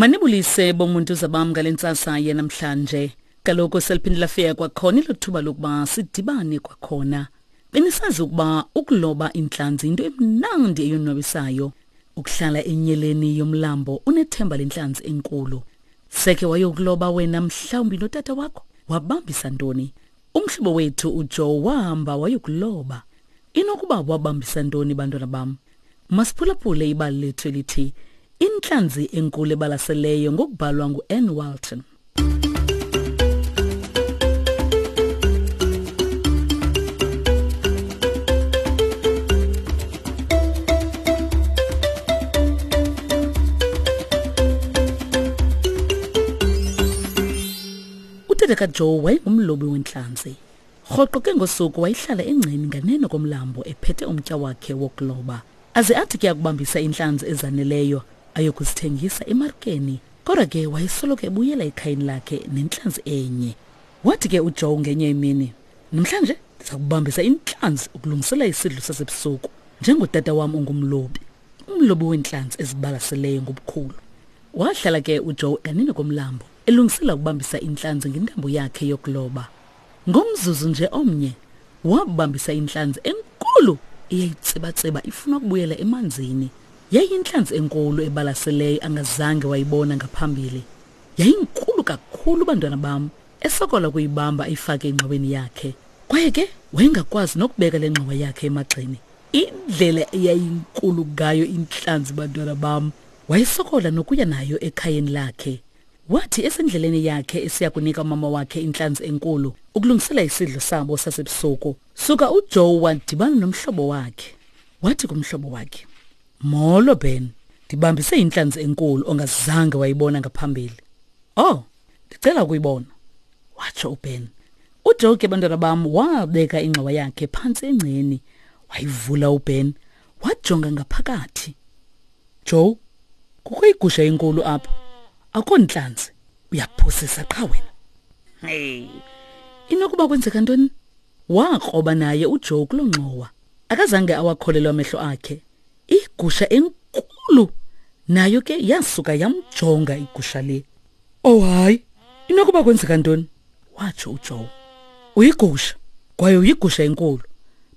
Manibulise bomuntu zabam ngale ntsasa yanamhlanje. Kaloku seliphinde lafika kwakhona elo thuba lokuba sidibane kwakhona. Benisazi ukuba ukuloba intlanzi yinto emnandi eyonwabisayo. Ukuhlala enyeleni yomlambo unethemba lentlanzi enkulu. Seke wayokuloba wena mhlawumbi notata wakho wabambisa ntoni? Umhlobo wethu uJoe wahamba wayokuloba. Inokuba wabambisa ntoni bantwana bam? Masiphulaphule ibali lethu elithi Intlanzi enkulu ebalaseleyo ngokubhalwa ngu-Ann Walton. Utata kaJoe wayengumlobi wentlanzi. Rhoqo ke ngosuku wayehlala engceni nganeno komlambo ephethe umtya wakhe wokuloba. Aze athi ke akubambisa iintlanzi ezaneleyo ayokuzithengisa emarikeni. Kodwa ke wayesoloko ebuyela ekhayeni lakhe nentlanzi enye. Wathi ke uJoe ngenye imini, Namhlanje ndiza kubambisa intlanzi ukulungisela isidlo sasebusuku njengotata wam ongumlobi, umlobi weentlanzi ezibalaseleyo ngobukhulu. Wahlala ke uJoe nganeno komlambo elungisela ukubambisa intlanzi ngentambo yakhe yokuloba. Ngomzuzu nje omnye wabambisa intlanzi enkulu eyayitsibatsiba ifuna ukubuyela emanzini. Yayiyintlanzi enkulu ebalaseleyo angazange wayibona ngaphambili. Yayinkulu kakhulu bantwana bam, esokola ukuyibamba ayifake engxoweni yakhe. Kwaye ke wayengakwazi nokubeka le ngxowa yakhe emagxeni. Indlela eyayinkulu ngayo intlanzi bantwana bam, wayesokola nokuya nayo ekhayeni lakhe. Wathi esendleleni yakhe esiya kunika umama wakhe intlanzi enkulu ukulungisela isidlo sabo sasebusuku, suka uJoe wadibana nomhlobo wakhe. Wathi kumhlobo wakhe, Molo Ben, ndibambise intlanzi enkulu ongazange wayibona ngaphambili. Oh, ndicela ukuyibona, watsho uBen. UJoe ke bantwana bam wabeka ingxowa yakhe phantsi engceni, wayivula uBen, wajonga ngaphakathi. Joe, kukho igusha enkulu apha. Akho ntlanzi. Uyaphosisa qha wena. Hey. Inokuba kwenzeka ntoni? Wakroba naye uJoe kuloo ngxowa. Akazange awakholelwa amehlo akhe. Igusha enkulu nayo ke yasuka yamjonga igusha le. Oh hayi, inokuba kwenzeka ntoni? Watsho uJoe. Uyigusha, kwaye uyigusha enkulu.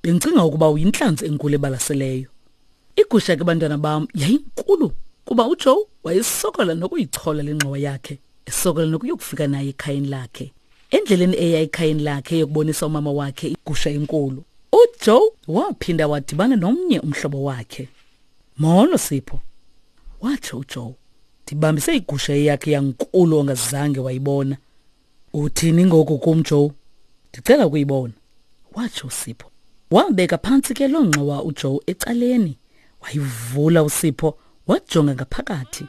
Bendicinga ukuba uyintlanzi enkulu ebalaseleyo. Igusha ke bantwana bam yayinkulu kuba uJoe wayesokola nokuyichola le ngxowa yakhe, esokola nokuyokufika naye ekhayeni lakhe. Endleleni eya ekhayeni lakhe yokubonisa umama wakhe igusha enkulu, uJoe waphinda wadibana nomnye umhlobo wakhe. Molo Sipho, watsho uJoe. Ndibambise igusha eyakhe yankulu ongazange wayibona. Uthini ngoku kum Joe? Ndicela ukuyibona, watsho uSipho. Wabeka phantsi ke loo ngxowa uJoe ecaleni. Wayivula uSipho wajonga ngaphakathi.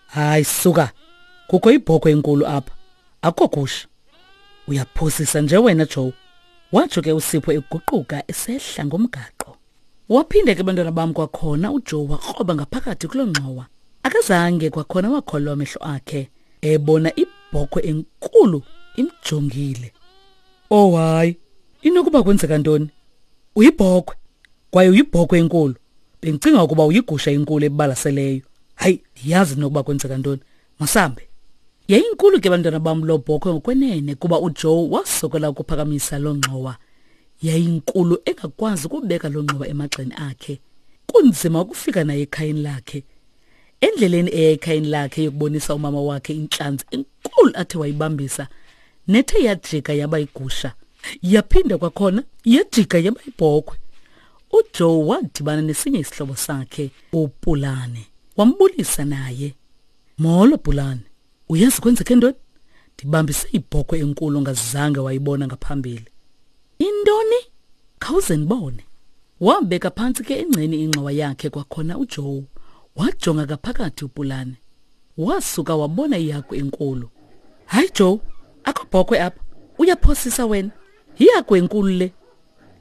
Hayi suka, kukho ibhokhwe enkulu apha. Akukho gusha. Uyaphosisa nje wena Joe. Watsho ke uSipho eguquka esehla ngomgaqo. Waphinde ke bantwana bam kwakhona uJoe wakroba ngaphakathi kuloo ngxowa. Akazange kwakhona wakholwa amehlo akhe ebona ibhokhwe enkulu imjongile. Oh hayi, inokuba kwenzeka ntoni? Uyibhokhwe kwaye uyibhokhwe enkulu. Bendicinga ukuba uyigusha enkulu ebalaseleyo. Hayi, ndiyazi nokuba kwenzeka ntoni. Masambe. Yayinkulu ke bantwana bam loo bhokhwe ngokwenene kuba uJoe wasokola ukuphakamisa loo ngxowa. Yayinkulu engakwazi ukubeka loo ngxowa emagxeni akhe. Kunzima ukufika naye ekhayeni lakhe. Endleleni eya ekhayeni lakhe yokubonisa umama wakhe intlanzi enkulu athe wayibambisa nethe yajika yaba igusha. Yaphinda kwakhona yajika yaba ibhokhwe. UJoe wadibana nesinye isihlobo sakhe uPulane. Wambulisa naye. Molo Pulane, uyazi kwenzeke ntoni? Ndibambise ibhokhwe enkulu ongazange wayibona ngaphambili. Intoni? Khawuze ndibone. Wabeka phantsi ke engceni ingxowa yakhe kwakhona uJoe. Wajonga ngaphakathi uPulane. Wasuka wabona ihagu enkulu. Hayi Joe, akho bhokhwe apha. Uyaphosisa wena. Yihagu enkulu le.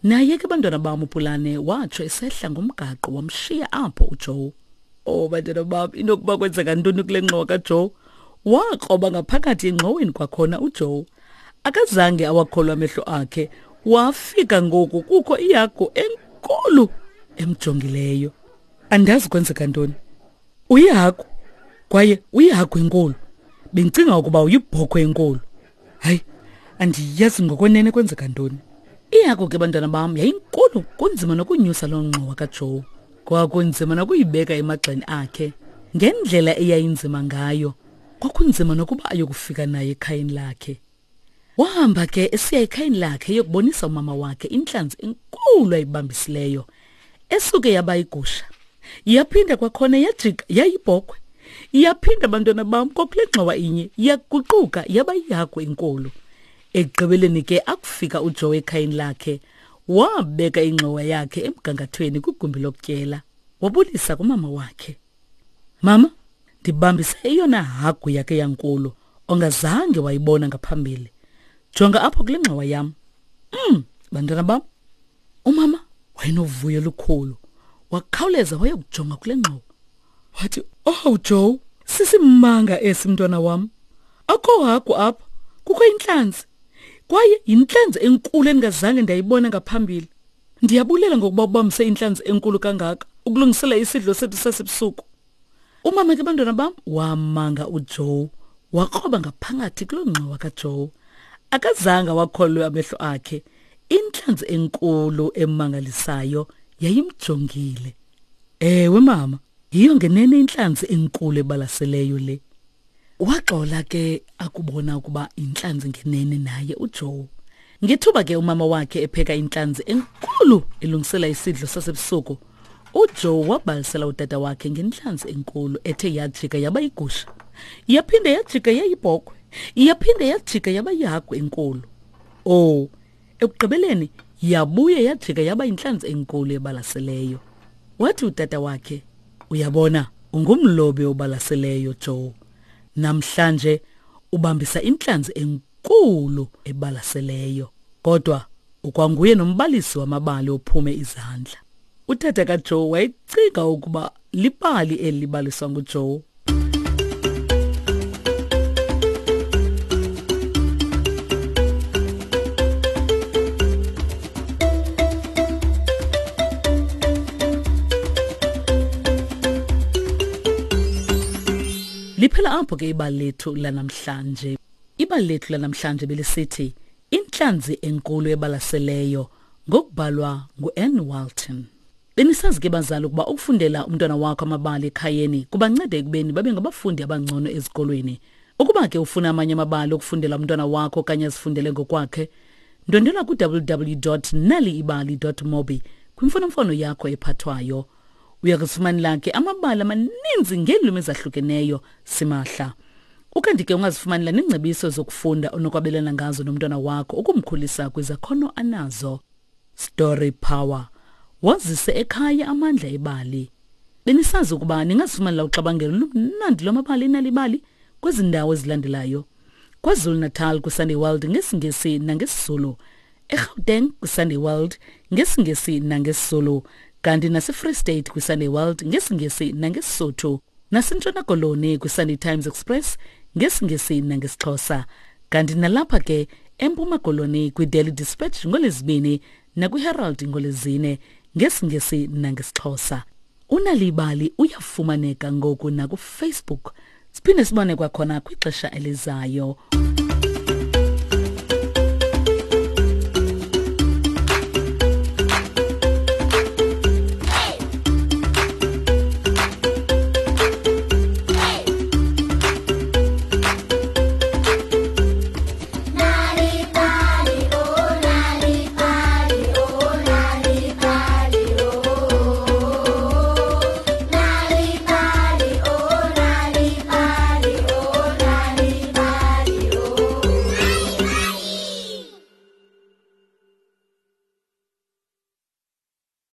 Naye ke bantwana bam uPulane watsho esehla ngomgaqo wamshiya apho uJoe. Oh bantwana bam inokuba kwenzeka ntoni kule ngxowa kaJoe? Wakroba ngaphakathi engxoweni kwakhona uJoe. Akazange awakholwa amehlo akhe. Wafika ngoku kukho ihagu enkulu emjongileyo. Andazi kwenzeka ntoni. Uyihagu. Kwaye uyihagu enkulu. Bendicinga ukuba uyibhokhwe enkulu. Hayi, andiyazi ngokwenene kwenzeka ntoni. Ihagu ke bantwana bam yayinkulu kunzima nokunyusa loo ngxowa kaJoe. Kwakunzima nokuyibeka emagxeni akhe. Ngendlela eyayinzima ngayo, kwakunzima nokuba ayokufika naye ekhayeni lakhe. Wahamba ke esiya ekhayeni lakhe eyokubonisa umama wakhe intlanzi enkulu ayibambisileyo esuke yaba igusha. Yaphinda kwakhona yajika yayibhokhwe. Yaphinda bantwana bam kwakule ngxowa inye yaguquka yaba yihagu enkulu. Ekugqibeleni ke akufika uJoe ekhayeni lakhe wabeka ingxowa yakhe emgangathweni kwigumbi lokutyela. Wabulisa kumama wakhe. Mama, ndibambise eyona hagu yakhe yankulu ongazange wayibona ngaphambili. Jonga apho kule ngxowa yam. Bantwana bam. Umama wayenovuyo olukhulu. Wakhawuleza wayokujonga kule ngxowa. Wathi, "Oh Joe, sisimanga esi mntwana wam. Akho hagu apha, kukho intlanzi. Kwaye yintlanzi enkulu endingazange ndayibona ngaphambili. Ndiyabulela ngokuba ubambise intlanzi enkulu kangaka ukulungisela isidlo sethu sasebusuku." Umama ke bantwana bam wamanga uJoe wakroba ngaphakathi kuloo ngxowa kaJoe. Akazange wakholwe amehlo akhe. Intlanzi enkulu emangalisayo yayimjongile. Ewe mama, yiyo ngenene intlanzi enkulu ebalaseleyo le. Waxola ke akubona ukuba intlanzi ngenene naye uJoe. Ngethuba ke umama wakhe epheka intlanzi enkulu elungisela isidlo sasebusuku, uJoe wabalisela utata wakhe ngentlanzi enkulu ethe yajika yaba yigusha. Yaphinde yajika yayibhokhwe. Yaphinde yajika yaba yihagu enkulu. Oh, ekugqibeleni yabuye yajika yaba yintlanzi enkulu ebalaseleyo. Wathi utata wakhe, "Uyabona, ungumlobi obalaseleyo, Joe. Namhlanje ubambisa intlanzi enkulu ebalaseleyo. Kodwa ukwanguye nombalisi wamabali ophume izandla." Utata kaJoe wayecinga ukuba libali eli libaliswa nguJoe. Liphela apho ke ibali lethu lanamhlanje. Ibali lethu lanamhlanje belisithi Intlanzi enkulu ebalaseleyo ngokubhalwa ngu-Ann Walton. Benisazi ke bazali ukuba ukufundela umntwana wakho amabali ekhayeni kubanceda ekubeni babe ngabafundi abangcono ezikolweni. Ukuba ke ufuna amanye amabali okufundela umntwana wakho okanye azifundele ngokwakhe, ndwendwela ku-www.naliibali.mobi kwimfonomfono yakho ephathwayo. Uya kuzifumanela ke amabali amaninzi ngeelwimi ezahlukeneyo simahla. Ukanti ke ungazifumanela neengcebiso zokufunda onokwabelana ngazo nomntwana wakho ukumkhulisa kwizakhono anazo. Story Power. Wazise ekhaya amandla ebali. Benisazi ukuba ningazifumanela uxabangelo lumnandi lwamabali enalibali kwezi ndawo ezilandelayo. KwaZulu-Natal kwiSunday World ngesiNgesi nangesiZulu. eGauteng kwiSunday World ngesiNgesi nangesiZulu kanti naseFree State kwiSunday World ngesiNgesi nangeSisotho naseNtshona Koloni kwiSunday Times Express ngesiNgesi nangesiXhosa kanti nalapha ke eMpuma Koloni kwiDaily Dispatch ngoLwezibini nakwiHerald ngoLwezine ngesiNgesi nangesiXhosa. Unalibali uyafumaneka ngoku nakuFacebook. Siphinde sibone kwakhona kwixesha elizayo.